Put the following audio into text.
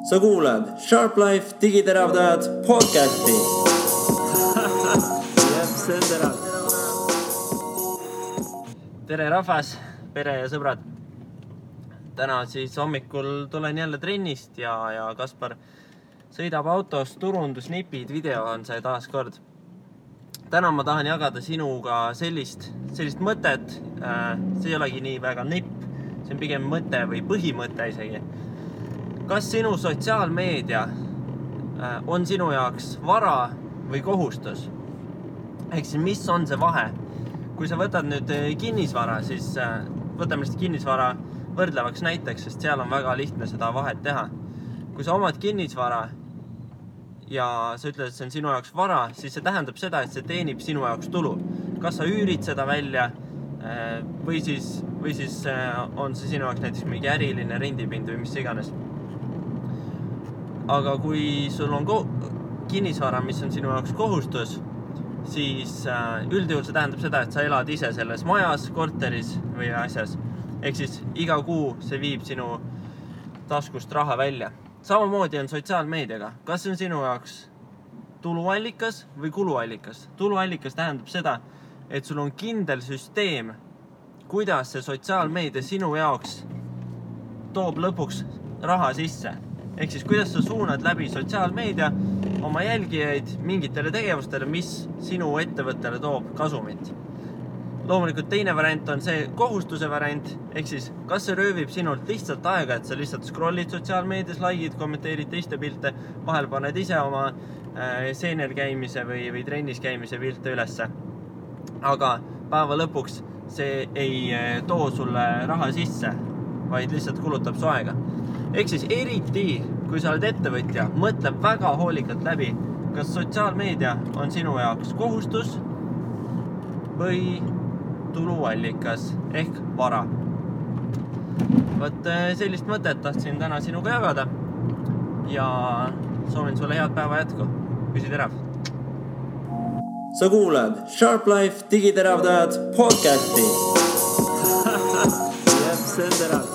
Sa kuulad Sharp Life digiteravdajad podcasti. See on terav. Tere rahvas, pere ja sõbrad. Täna siis hommikul tulen jälle trennist ja Kaspar sõidab autos turundusnipid, video on see taas kord. Täna ma tahan jagada sinuga sellist mõtet, see ei olegi nii väga nipp, see on pigem mõte või põhimõte isegi. Kas sinu sotsiaalmeedia on sinu jaoks vara või kohustus? Ehk siis mis on see vahe? Kui sa võtad nüüd kinnisvara, siis võtame lihtsalt kinnisvara võrdlevaks näiteks, sest seal on väga lihtne seda vahet teha. Kui sa omad kinnisvara ja sa ütled, et see on sinu jaoks vara, siis see tähendab seda, et see teenib sinu jaoks tulu. Kas sa üürid seda välja või siis on see sinu jaoks näiteks mingi äriline rendipind või mis iganes. Aga kui sul on kinnisvara, mis on sinu jaoks kohustus, siis üldjuhul see tähendab seda, et sa elad ise selles majas, korteris või asjas. Ehk siis iga kuu see viib sinu taskust raha välja. Samamoodi on sotsiaalmeediaga. Kas see on sinu jaoks tuluallikas või kuluallikas? Tuluallikas tähendab seda, et sul on kindel süsteem, kuidas see sotsiaalmeedia sinu jaoks toob lõpuks raha sisse. Ehk siis kuidas sa suunad läbi sotsiaalmeedia oma jälgijaid mingitele tegevustele, mis sinu ettevõttele toob kasumit. Loomulikult teine variant on see kohustuse variant, ehk siis kas see röövib sinult lihtsalt aega, et sa lihtsalt scrollid sotsiaalmeedias, likeid, kommenteerid teiste pilte, vahel paned ise oma seener käimise või trennis käimise pilte ülesse. Aga päeva lõpuks see ei too sulle raha sisse, vaid lihtsalt kulutab su aega. Ehk siis eriti, kui sa oled ettevõtja, mõtleb väga hoolikalt läbi, kas sotsiaalmeedia on sinu jaoks kohustus või tuluallikas ehk vara. Võt sellist mõtet tahtsin täna sinuga jagada ja soovin sulle head päeva jätku. Püsi terav! Sa kuulad Sharp Life digiteravdajad podcasti. See on terav.